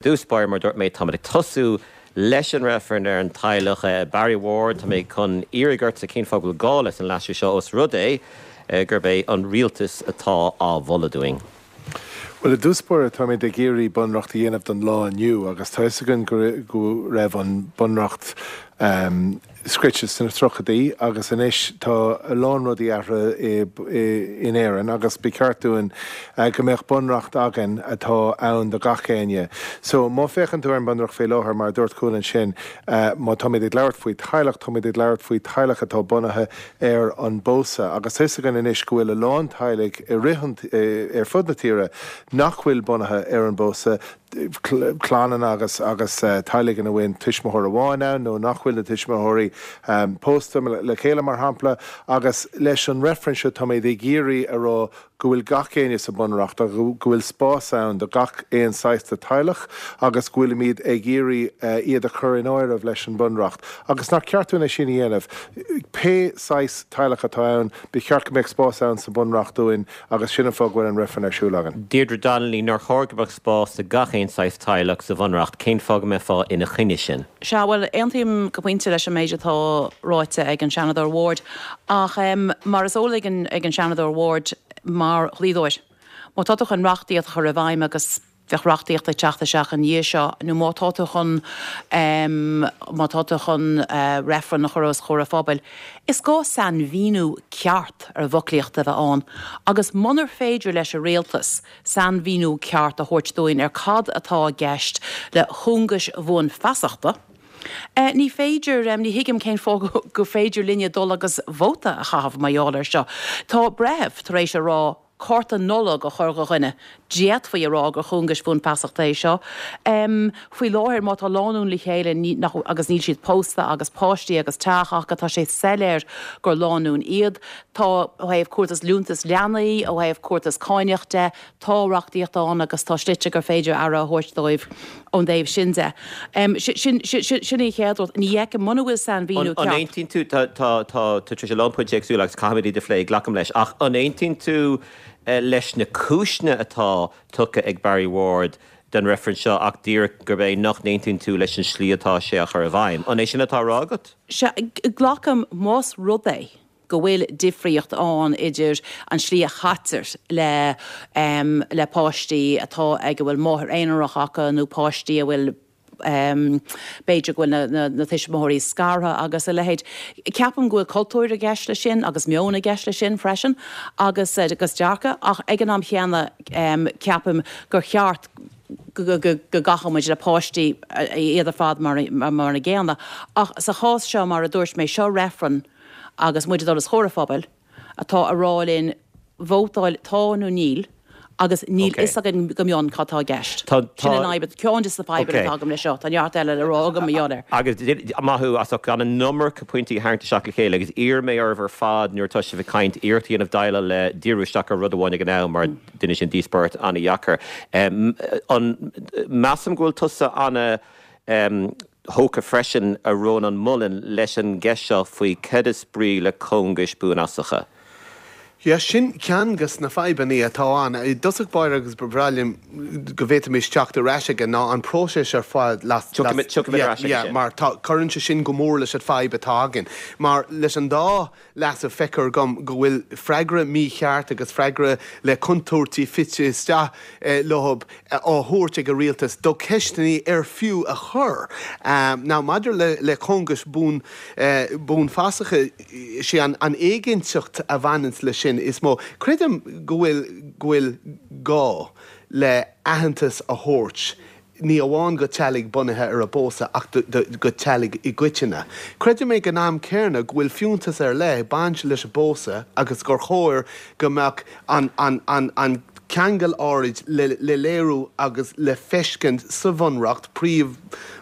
Dtús báire, mar a dúirt mé, táimid ag tosú leis an reifreann ar an teaghlach. Barry Ward, tá mé chun iarraidh ortsa cén fáth go bhfuil gá leis an leasú seo os rud é gurb é an rialtas atá á mholadh dúinn? Bhuel, i dtús báire, táimid ag iarraidh bunreacht a dhéanamh don lá inniu agus tá fhios againn go raibh an bunreacht scrite sna tríochaidí agus anois tá a lán rudaí athraithe in Éirinn agus ba cheart dúinn go mbeadh bunreacht againn atá ann do gach éinne. So má féachann tú ar an bunreacht faoi láthair, mar a dúirt Cúán ansin, má táimid ag labhairt faoi teaghlach, táimid ag labhairt faoi teaghlach atá bunaithe ar an bpósadh agus tá fhios againn anois go bhfuil a lán teaghlaigh i rith an, ar fud na tíre nach bhfuil bunaithe ar an bpósadh, clanna agus agus teaghlaigh ina bhfuil tuismitheoir amháin ann nó nach bhfuil na tuismitheoirí pósta le chéile, mar shampla. Agus leis an reifreann seo táimid ag iarraidh a rá go bhfuil gach éinne sa Bhunreacht agus go bhfuil spás ann do gach aon saghas de teaghlach agus go bhfuilimid ag iarraidh iad a chur in áireamh leis an Bhunreacht agus nach ceart dúinn é sin a dhéanamh. Pé saghas teaghlach atá ann, ba cheart go mbeadh spás ann sa Bhunreacht dúinn Agus sin an fáth go bhfuil an reifreann ar siúl againn. Deirdre Donnelly, Nár chóir go mbeadh spás do gach aon saghas teaghlach sa Bhunreacht? Cén fáth go mbeifeá ina choinne sin? Sea, bhuel, aontaím go pointe leis an méid atá ráite ag an Seanadóir Ward, ach mar is eol ag an Seanadóir Ward, mar dhlíodóir, má tá tú chun reachtaíocht a chur i bhfeidhm agus bheadh reachtaíocht ag teacht isteach ina dhiaidh seo, nó má tá tú chun, má tá tú chun reifreann a chur os comhair an phobail, is gá sainmhíniú ceart ar an bhfoclaíocht a bheith ann. Agus munar féidir leis an rialtas sainmhíniú ceart a thabhairt dúinn ar cad atá i gceist le cúngais bhuanfheasachta, ní féidir, ní thuigim cén fáth gur féidir linne dul agus vóta a chaitheamh mar gheall air seo. Tá breitheamh tar éis a rá cárta Nollag a chur do dhuine. D'fhéadfaí a rá gur chúngais bhuanfheasachta é seo. Faoi láthair, má tá lánúin le chéile agus níl siad pósta agus páistí agus teach acu, tá sé soiléir gur lánúin iad. Tá, ó thaobh cúrtas liúntas leanaí, ó thaobh cúrtas cáineach de, tá reachtaíocht ann agus tá slite gur féidir aire a thabhairt dóibh ón dtaobh sin de. Sin sin an chéad rud. Ní fheicim, muna bhfuil sainmhíniú ceart. An aontaíonn tú, tá tá tá tú tar éis a lán pointí éagsúla agus caithfimid iad a phlé, glacaim leis, ach an aontaíonn tú leis na cúiseanna atá tugtha ag Barry Ward don reifreann seo ach díreach gurb é nach n-aontaíonn tú leis an slí atá sé á chur i bhfeidhm? An é sin atá á rá agat? Sea, glacaim, más rud é go bhfuil difríocht ann idir an slí a chaitear le le páistí atá ag a bhfuil máthair aonarach acu nó páistí a bhfuil b'fhéidir go bhfuil na na tuismitheoirí scartha agus a leithéid. Ceapaim go bhfuil cultúr i gceist leis sin agus meon i gceist leis sin freisin agus agus dearcadh ach ag an am chéanna ceapaim gur cheart go gcaithfeadh muid le páistí iad ar fad mar mar an gcéanna. Ach sa chás seo mar a dúirt mé, seo reifreann agus muid ag dul os comhair an phobail, atá ag rá linn vótáil tá nó níl agus níl fhios againn go mion cad tá i gceist. Sin an fhadhb, ceann de na fadhbanna atá agam leis seo. Tá neart eile le rá agam mar gheall air. Agus maith thú as ucht gan an iomarca pointí a tharraingt isteach le chéile agus iarrfaidh mé oraibh ar fad nuair atá sibh ag caint iarracht a dhéanamh déileáil le díriú isteach ar rud amháin ag an am mar déanann sin díospóireacht an-dheacair. An measaim go bhfuil tusa ana thógtha freisin, a Rónán Mullen, leis an gceist seo faoi cad is brí le cóngais buanfhasacha. Yeah, sin ceann de na fadhbanna atá ann. I dtosach báire agus ba bhreá liom go bhféadfaimis teacht ar ais aige ná an próiseas ar fad las, Tiocfaimid, tiocfaimid ar ais aige yeah, sin. mar tá, cuireann sé sin go mór leis an fadhb atá againn. Mar leis an dá leasú feictear dom go bhfuil freagra mícheart agus freagra le contúirtí fite isteach leo á thabhairt ag an rialtas do cheisteanna ar fiú a chur. Now maidir le cóngais buanfhasacha, is é an éiginnteacht a bhaineanns leis sin is mó. Creidim go bhfuil go bhfuil gá le aitheantas a thabhairt ní amháin go teaghlaigh bunaithe ar an bpósadh ach go teaghlaigh i gcoitinne. Creidim ag an am céanna go bhfuil fiúntas ar leith ag baint leis an bpósadh agus gur chóir go mbeadh an ceangal áirid le léiriú agus le feiscint sa Bhunreacht, príomh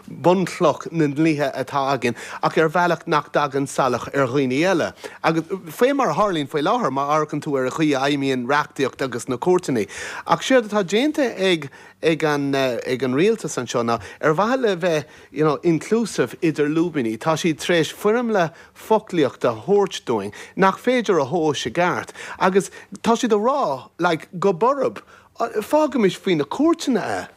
bunchloch na ndlíthe atá againn, ach ar bhealach nach dtagann salach ar dhaoine eile. Agus faoi mar a tharlaíonn faoi láthair má amharcann tú ar an chaoi a fheidhmíonn reachtaíocht agus na cúirteanna. Ach séard atá déanta ag ag an ag an rialtas anseo ná ar mhaithe le bheith you know inclusive idir lúibíní tá siad tar éis foirmle foclaíochta a thabhairt dúinn nach féidir a thomhas i gceart agus tá siad a rá like go borb fágaimis faoi na cúirteanna é.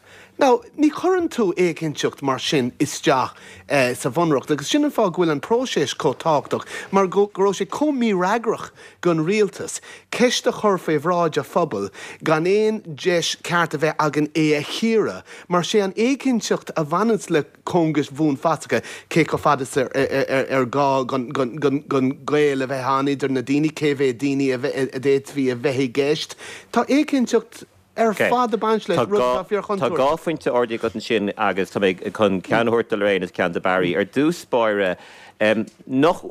Now, ní chuireann tú éiginnteacht mar sin isteach sa Bhunreacht agus sin an fáth go bhfuil an próiseas chomh tábhachtach, mar go raibh sé chomh mífhreagrach don rialtas ceist a chur faoi bhráid an phobail gan aon deis ceart a bheith againn é a chíoradh, mar sé an éiginnteacht a bhaineanns le cóngais bhuanfhasacha, cé chomh fada is ar gá don gaol a bheith ann idir na daoine, cé mhéad daoine a d'fhéadfaí a bheith i gceist. Tá éiginnteacht ar fad ag baint leis, rud atá fíorchontúirteach. Tá dhá phointe ardaithe agat ansin agus tá mé chun ceann a thabhairt do Lorraine agus ceann do Barry. Ar dtús báire, nach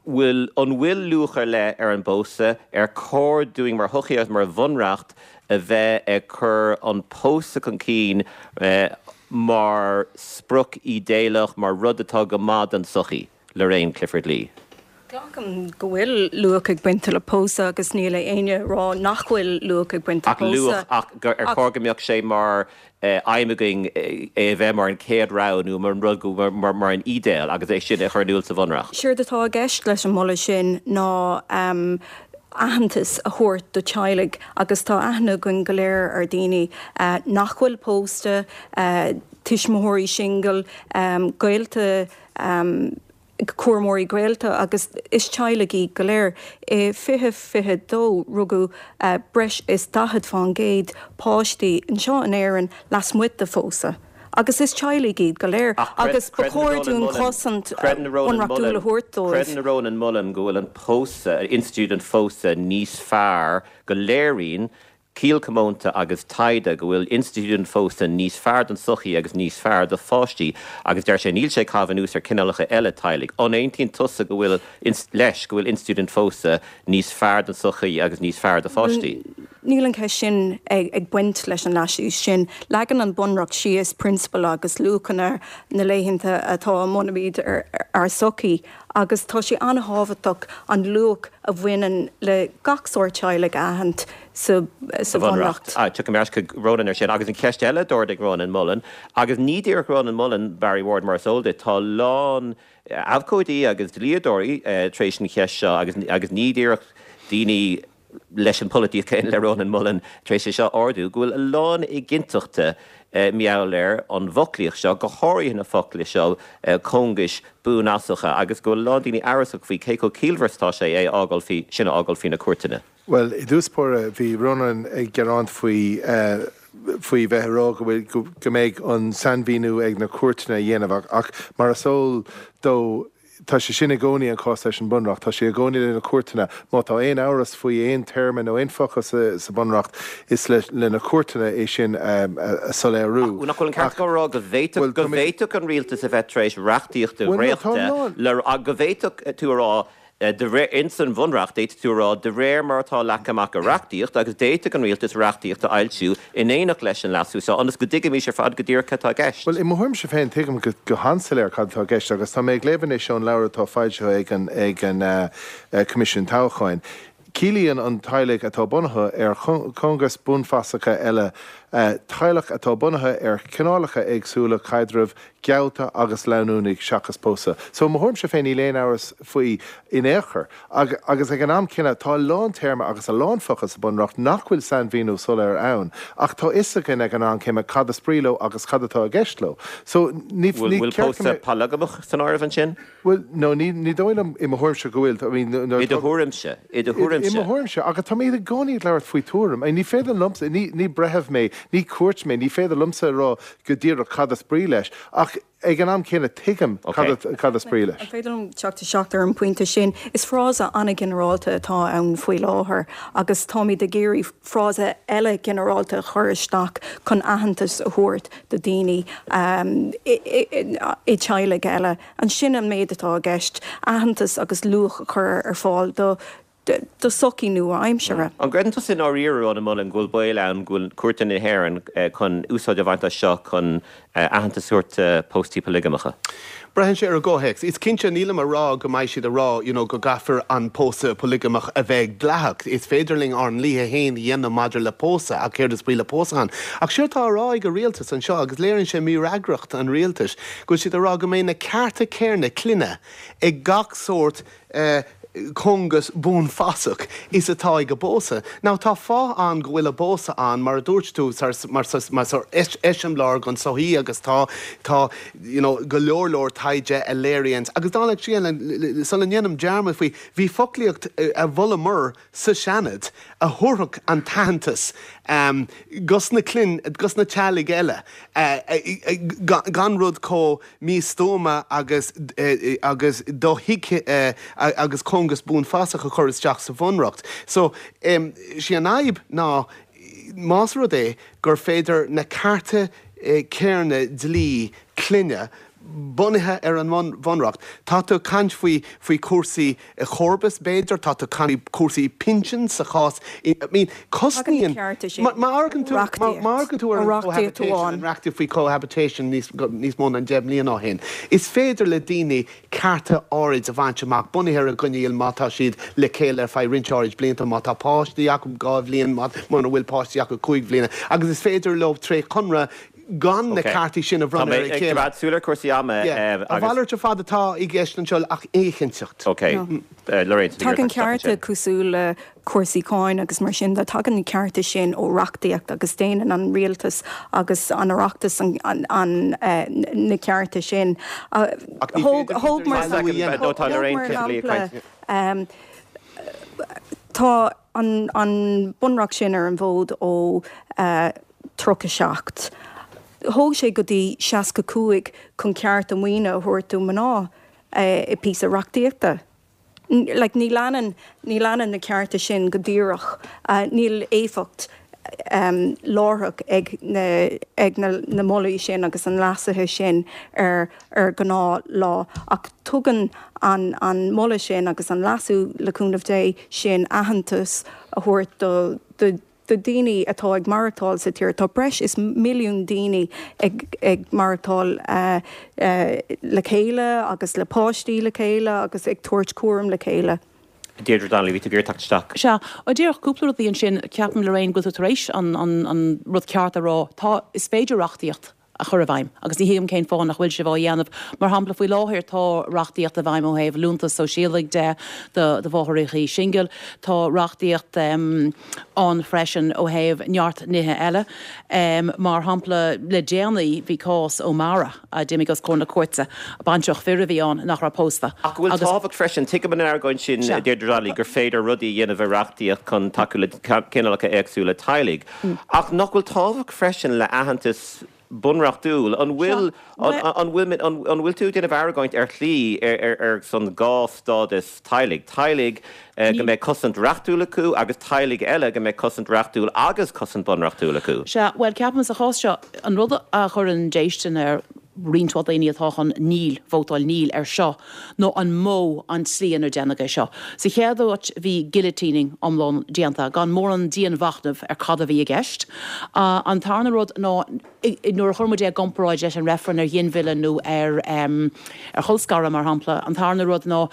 bhfuil, an bhfuil luach ar leith ar an bpósadh? Ar chóir dúinn mar shochaí agus mar bhunreacht a bheith ag cur an pósadh chun cinn mar sprioc ídéalach, mar rud atá go maith don tsochaí? Lorraine Clifford-Lee. Glacaim go bhfuil luach ag baint le pósadh agus níl éinne ag rá nach bhfuil luach ag baint le pósadh. Ach luach, ach gur ar chóir go mbeadh sé mar aidhm againn é a bheith mar an chéad rogha nó mar an rud go, mar an ídéal agus é sin a chur in iúl sa Bhunreacht. Séard atá i gceist leis an moladh sin ná aitheantas a thabhairt do teaghlaigh agus tá aithne againn go léir ar daoine nach bhfuil pósta, tuismitheoirí singil, gaolta, cúramóirí gaolta agus is teaghlaigh iad go léir. I 2022 rugadh breis is 40 fán gcéad páistí anseo in Éirinn lasmuigh de phósadh agus is teaghlaigh iad go léir agus ba chóir dúinn cosaint bhunreachtúil a thabhairt dóibh. Creideann Rónán Mullen go bhfuil an pósadh, institiúid an phósadh níos fearr, go léiríonn Ciall comónta agus taighde go bhfuil institiúid an phósta níos fearr don tsochaí agus níos fearr do pháistí agus deir sé níl sé ag caitheamh anuas ar cineálacha eile teaghlaigh. An aontaíonn tusa go bhfuil, leis, go bhfuil institiúid an phósta níos fearr don tsochaí agus níos fearr do pháistí? Níl an cheist sin ag baint leis an leasú sin. Leagann an Bunreacht síos prionsabail agus luachanna na laethanta atá a mbunaímid ár sochaí agus tá sé an-thábhachtach an luach a bhaineann le gach sórt teaghlaigh a aithint sa Bhunreacht. Tiocfaidh mé ar ais chuig Rónán ar sin. Agus an cheist eile a d'ardaigh Rónán Mullen, agus ní díreach Rónán Mullen, Barry Ward, mar is eol duit, tá a lán abhcóidí agus dlíodóirí tar éis an cheist seo, agus agus ní díreach daoine leis an pholaitíocht chéanna le Rónán Mullen tar éis é seo a ardú, go bhfuil a lán éiginnteachta mar gheall ar an bhfoclaíocht seo, go háirithe na focla seo, cóngais buanfhasacha, agus go bhfuil a lán daoine amhrasach faoi cé chomh ciallmhar is atá sé é a fhágáil faoi, sin a fhágáil faoi na cúirteanna. Bhuel, i dtús báire, bhí Rónán ag gearán faoi, faoi bheith ag rá go bhfuil, go mbeidh an sainmhíniú ag na cúirteanna a dhéanamh ach mar is eol dó, tá sé sin i gcónaí an cás leis an Bunreacht, tá sé i gcónaí le na cúirteanna. Má tá aon amhras faoi aon téarma nó aon focal sa Bunreacht, is le na cúirteanna é sin a soiléiriú. Ach nach bhfuil an ceart aige a rá go bhféadfadh, go bhféadfadh an rialtas a bheith tar éis reachtaíocht a dhréachtadh le, go bhféadfadh tú a rá, De réir, ins an Bhunreacht, d'fhéadfadh tú a rá, de réir mar atá leagtha amach i reachtaíocht, agus d'fhéadfadh an Rialtas reachtaíocht a fhoilsiú in éineacht leis an leasú seo, ionas go dtuigfimis ar fad go díreach cad atá i gceist. Bhuel, i mo thuairimse féin, tuigim go han-soiléir cad atá i gceist, agus tá mé ag léamh anois ón leabhar atá foilsithe ag an ag an Coimisiún Toghcháin. Ciallaíonn an teaghlaigh atá bunaithe ar chóngais buanfasacha eile teaghlach atá bunaithe ar chineálacha éagsúla caidrimh geallta agus leanúnaigh seachas pósadh. So, i mo thuairimse féin, níl aon amhras faoi in aon chor. Agus ag an am céanna, tá a lán téarma agus a lán focal sa Bunreacht nach bhfuil sainmhíniú soiléir ann, ach tá fhios againn ag an am céanna cad is brí leo agus cad atá i gceist leo. So, ní Bhfuil ceart go pósadh mbeadh. polagamach san áireamh ansin? Bhuel, no, ní, ní dóigh liom, i mo thuairimse, go bhfuil. I mean, nuair I do thuairimse, i do thuairimse. I mo thuairimse, agus táimid i gcónaí ag labhairt faoi tuairim. I mean, ní féidir liomsa, ní, ní breitheamh mé, ní cúirt mé, ní féidir liomsa a rá go díreach cad is brí leis, ach ag an am céanna tuigim cad, cad is brí leis. An féidir liom teacht isteach ar an bpointe sin? Is frása an-ghinearálta atá ann faoi láthair agus táimid ag iarraidh frása eile ginearálta a chur isteach chun aitheantas a thabhairt do daoine i dteaghlaigh eile. Ansin an méid atá i gceist, aitheantas agus luach a chur ar fáil do do sochaí nua-aimseartha. An gcreideann tusa i ndáiríre, Rónán Mullen, go bhfuil baol ann go bhfuil cúirteanna na hÉireann chun úsáid a bhaint as seo chun aitheantas a thabhairt do póstaí poileagamacha? Braitheann sé ar an gcomhthéacs. Is cinnte, nílim a rá go mbeidh siad a rá you know go gcaithfear an pósadh poileagamach a bheith dleathach. Is féidir linn ár ndlíthe féin a dhéanamh maidir le pósadh ach céard is brí le pósadh ann? Ach séard atá á rá ag an rialtas anseo, agus léiríonn sé mífhreagracht an rialtais, go bhfuil siad a rá go mbeidh na cearta céanna clainne ag gach sórt eh. cóngas buanfasach is atá ag an bpósadh. Now tá fáth ann go bhfuil an pósadh ann, mar a dúirt tú, mar eiseamláir don tsochaí agus tá, tá, you know, go leor leor taighde a léiríonns, agus dála an scéil, sula ndéanaim dearmad faoi, bhí foclaíocht a mholamar sa Seanad a thabharfadh an t-aitheantas dos na clainn, dos na teaghlaigh eile, gan rud chomh místuama agus agus dothuigthe agus cóngas buanfasach a chur isteach sa Bhunreacht. So, sí an fhadhb ná más rud é gur féidir na cearta céarna dlí clainne bunaithe ar an mBunreacht. Tá tú ag caint faoi faoi chúrsaí comharbas b'fhéidir, tá tú ag caint faoi chúrsaí pinsin sa chás, I mean cosnaíonn, má amharcann tú, má amharcann tú ar an cohabitation, an reachtaíocht faoi cohabitation níos níos mó ná 10 mbliana ó shin, is féidir le daoine cearta áirid a bhaint amach bunaithe ar an gcoinníoll má tá siad le chéile ar feadh roinnt áirid blianta, má tá páistí acu 2 bhliain, mura bhfuil páistí acu 5 bhliana agus is féidir leo tré chonradh gan na ceartaí sin a bhronnadh ar a chéile. Tá mé ag coimeád súil ar chúrsaí ama agus. A mhalairt ar fad atá i gceist anseo ach éiginnteacht. Ok. Lorraine, tá tú ag iarraidh teacht isteach ansin. Tagann cearta cosúil le cúrsaí cáin agus mar sin de, tagann na cearta sin ó reachtaíocht agus déanann an rialtas agus an Oireachtas na cearta sin. Thóg mar shampla, tá an bunreacht sin ar an bhfód ó 37. Thóg sé go dtí 65 chun cearta maoine a thabhairt do mná i píosa reachtaíochta. Like, ní leanann, ní leanann na cearta sin go díreach, níl éifeacht láithreach ag na, ag na, na molaí sin agus an leasuithe sin ar, ar ghnáth lá. Ach tugann an, an moladh sin agus an leasú, le cúnamh Dé, sin aitheantas a thabhairt do, do, do daoine atá ag maireachtáil sa tír. Tá breis is milliún daoine ag maireachtáil le chéile agus le páistí le chéile agus ag tabhairt cúram le chéile. Deirdre Donnelly, bhí tú ag iarraidh teacht isteach. Sea, díreach cúpla rudaí ansin. Ceapaim, Lorraine, go bhfuil tú tar éis an rud ceart a rá. Tá, is féidir reachtaíocht a chur i bhfeidhm agus ní thuigim cén fáth nach bhfuil sibh á dhéanamh. Mar shampla, faoi láthair tá reachtaíocht i bhfeidhm ó thaobh liúntas sóisialaigh de do mháithreacha singil. Tá reachtaíocht ann freisin ó thaobh neart nithe eile. Mar shampla, le déanaí bhí cás O'Mara a d'imigh os comhair na cúirte, baintreach fir a bhí ann nach raibh pósta Ach go bhfuil tábhacht freisin, tuigim an argóint sin, a Deirdre Donnelly, gur féidir rudaí a dhéanamh i reachtaíocht chun tacú le cineálacha éagsúla teaghlaigh. Ach nach bhfuil tábhacht freisin le aitheantas bunreachtúil? An bhfuil, an bhfuil, an bhfuil tú ag déanamh argóint ar shlí ar son dhá stádas teaghlaigh, teaghlaigh go mbeidh cosaint reachtúil acu agus teaghlaigh eile go mbeidh cosaint reachtúil agus cosaint bunreachtúil acu? Sea, bhuel, ceapaim sa chás seo, an rud a chuireann déistin ar roinnt mhaith daoine atá chun níl, vótáil níl ar seo, ná an modh, an tslí inar déanadh é seo. Sa chéad áit bhí guillotining iomlán déanta, gan mórán dianmhachnaimh ar cad a bhí i gceist. An tarna rud ná nuair a chuir muid é i gcomparáid leis an reifreann ar ghinmhilleadh nó ar ar cholscaradh, mar shampla, an tarna rud ná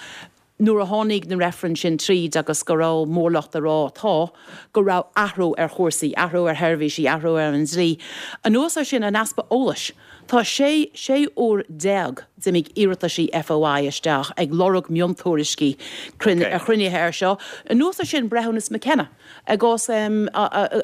nuair a tháinig na reifrinn sin tríd agus go raibh mórlucht ag rá tá, go raibh athrú ar chúrsaí, athrú ar sheirbhísí, athrú ar an dlí. Anuas air sin, an easpa eolais. Tá 16 sé uair d'imigh iarrataisí FOI isteach ag lorg miontuairiscí ar chruinnithe air seo. Anuas air sin, breithiúnas McKenna i gcás i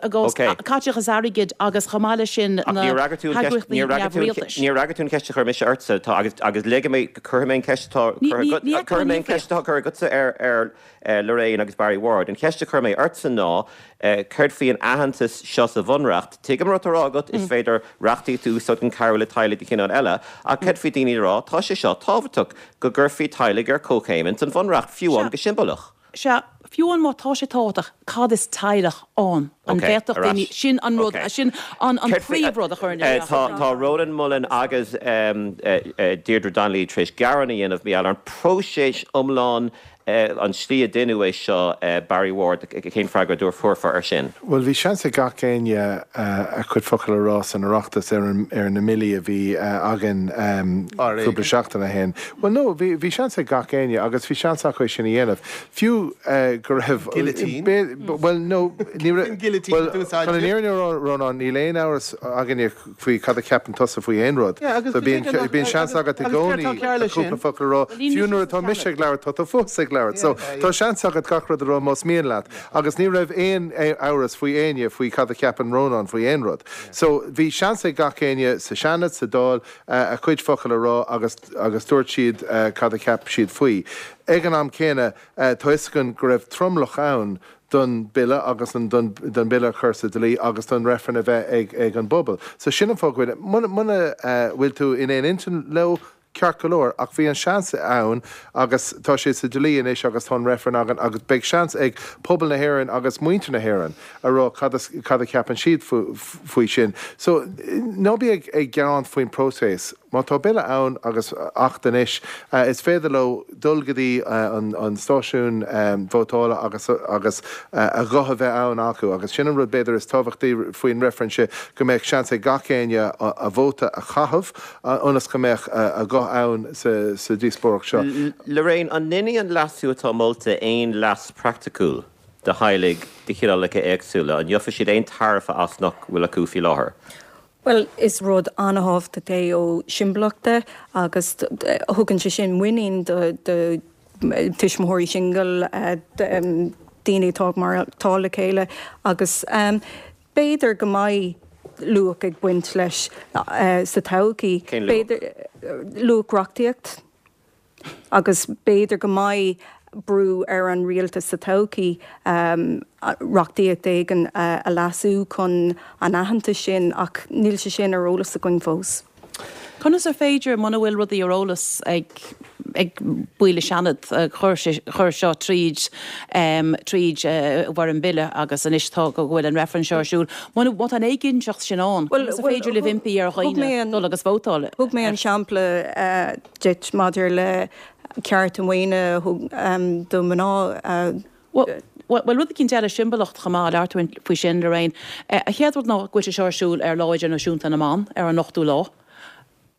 gcás caiteachas airgid agus chomh maith leis sin na heagraíochtaí neamhrialtais. Níor fhreagair tú an cheist a chuir mise ortsa agus agus ligfidh mé, cuirfidh mé an cheist atá cuirfidh mé an cheist atá curtha agatsa ar ar Lorraine agus Barry Ward. An cheist a chuir mé ortsa ná céard faoi an aitheantas seo sa Bhunreacht? Tuigim an rud atá á rá agat, is féidir reachtaíocht a úsáid chun cabhrú le teaghlaigh de chineál eile, ach céard faoi daoine ag rá, tá sé seo tábhachtach, go gcuirfí teaghlaigh ar comhchéim ins an Bhunreacht, fiú amháin go siombalach? Sea, fiú amháin má tá sé tábhachtach, cad is teaghlach ann? An bhféadfadh daoine, sin an rud, sin an príomhrud a chuireann isteach. Tá Rónán Mullen agus Deirdre Donnelly tar éis gearán a dhéanamh mar gheall ar an próiseas iomlán An tslí a deineadh é seo, Barry Ward, cén freagra a thabharfá air sin? Bhuel, bhí seans ag gach éinne a chuid focal a rá san Oireachtas ar ar na mbillí a bhí againn cúpla seachtain ó shin. Bhuel, no, bhí bhí seans ag gach éinne agus bhí seans acu é sin a dhéanamh. Fiú go raibh. Guillotine? Bhuel, no, ní raibh. Bhuel, chun an fhírinne a rá, Rónán, níl aon amhras againne faoi cad a cheapann tusa faoi aon rud. So bíonn seans agat i gcónaí cúpla focal a rá. Fiú nuair atá mise ag labhairt, tá tú fós ag. ag labhairt. So, tá seans agat gach rud a rá más mian leat. Agus ní raibh aon amhras faoi éinne faoi cad a cheapann Rónán faoi aon rud. So, bhí seans ag gach éinne sa Seanad, sa Dáil, a gcuid focal a rá agus agus dúirt siad cad a cheap siad faoi. Ag an am céanna, tá fhios againn go raibh tromlach ann don bille agus an don don bille a chur sa dlí agus don reifreann a bheith ag ag an bpobal. So sin an fáth go bhfuil, muna muna bhfuil tú in aon intinn leo, ceart go leor, ach bhí an seans ann agus tá sé sa dlí anois agus tá an reifreann againn agus beidh seans ag pobal na hÉireann agus muintir na hÉireann a rá cad cad a cheapann siad faoi sin. So ná bí ag ag gearán faoin próiseas. Má tá bille ann agus acht anois, is féidir leo dul go dtí an stáisiún vótála agus agus a ghuth a bheith ann acu agus sin an rud b'fhéidir is tábhachtaí faoin reifreann seo, go mbeadh seans ag gach éinne a vóta a chaitheamh ionas go mbeadh a ghuth ann sa díospóireacht seo. Lorraine, an ndéanfaidh an leasú atá molta aon leas praiticiúil do theaghlaigh de chineálacha éagsúla? An ngeofaidh siad aon tairbhe as nach bhfuil acu faoi láthair? Bhuel, is rud an-thábhachtach é ó shimbolacht de agus thugann sé sin muinín do tuismitheoirí singil, daoine atá ag maireachtáil le chéile agus b'fhéidir go mbeidh luach ag baint leis sa todhchaí. Cén luach? Luach reachtaíocht. Agus b'fhéidir go mbeidh brú ar an rialtas sa todhchaí reachtaíocht éigin a leasú chun an aitheantas sin, ach níl sé sin ar eolas againn fós. Conas ar féidir, muna bhfuil rudaí ar eolas ag ag baill an Seanad a chuir seo tríd tríd i bhfoirm bille agus anois tá go bhfuil an reifreann seo ar siúl, muna má tá an éiginnteacht sin ann, conas ar féidir libh impí ar dhaoine dul agus vótáil? Thug mé an sampla duit maidir le cearta maoine do mhná. Bhuel, rud eicínt eile, siombailíocht chomh maith, labhair tú faoi sin, Lorraine. An chéad rud ná go bhfuil sé seo ar siúl ar Lá Idirnáisiúnta na mBan, ar an ochtú lá.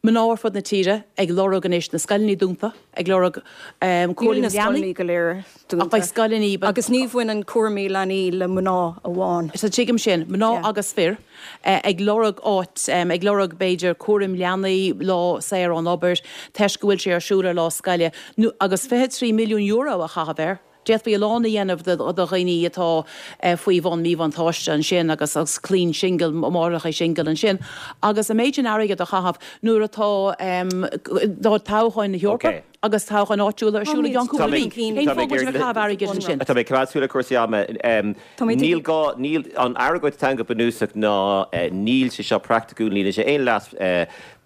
Mná ar fud na tíre ag lorg anois na scoileanna dúnta, ag lorg cúraim leanaí. Níl na scoileanna go léir dúnta. Ach beidh scoileanna. Agus ní bhaineann cúraimí leanaí le mná amháin. Sea, tuigim sin. Mná agus fir. ag lorg áit, ag lorg b'fhéidir cúraim leanaí, lá saor ón obair, toisc go bhfuil sé ar siúl ar lá scoile, nó agus €23 milliún a chaitheamh air. D'fhéadfaí a lán a dhéanamh do dhaoine atá faoi bhun míbhuntáiste ansin agus agus clainn singil, máithreacha singil ansin. Agus an méid sin airgid a chaitheamh nuair atá toghcháin na hEorpa. agus toghcháin áitiúla ar siúl i gceann cúpla mí. Cén fáth go bhfuil sibh ag caitheamh airgid ansin? Tá mé ag coimeád súil ar chúrsaí ama. Níl gá, níl, an argóint atá ann go bunúsach ná níl sé seo praiticiúil, níl sé aon leas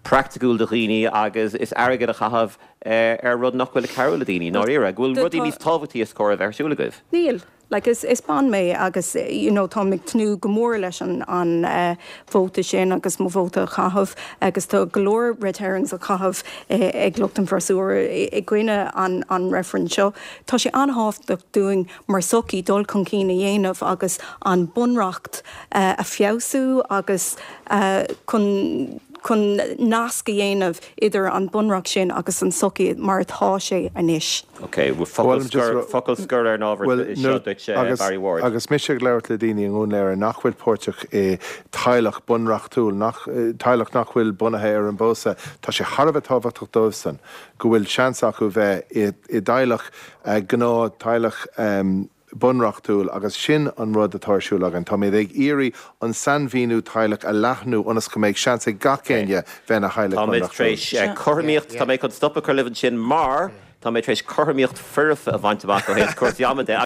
praiticiúil do dhaoine agus is airgead a chaitheamh ar rud nach bhfuil ag cabhrú le daoine, i ndáiríre. Go bhfuil rudaí níos tábhachtaí is cóir a bheith ar siúl agaibh. Níl. Like is is bean mé agus you know táim ag tnúth go mór leis an an vóta sin agus mo vóta a chaitheamh agus tá go leor red herrings á chaitheamh ag lucht an bhfreasúra i gcoinne an an reifrinn seo. Tá sé an-thábhachtach dúinn mar sochaí dul chun cinn a dhéanamh agus an bunreacht a feabhsú agus chun chun nasc a dhéanamh idir an bunreacht sin agus an sochaí mar atá sé anois. Ok, focal scoir, focal scoir ar an ábhar seo duit, Barry Ward. Agus mise ag labhairt le daoine i nDún Laoghaire nach bhfuil páirteach i teaghlach bunreachtúil, nach, teaghlach nach bhfuil bunaithe ar an bpósadh, tá sé thar a bheith tábhachtach dóibhsan go bhfuil seans acu bheith i dteaghlach, gnáth teaghlach, bunreachtúil agus sin an rud atá ar siúl againn. Táimid ag iarraidh an sainmhíniú teaghlach a leathnú ionas go mbeidh seans ag gach éinne bheith ina theaghlach Táimid tar bunreachtúil. éis cothromaíocht, tá mé chun stop a chur libh ansin mar tá mé tar éis cothromaíocht foirfe a bhaint amach ó thaobh cúrsaí ama de.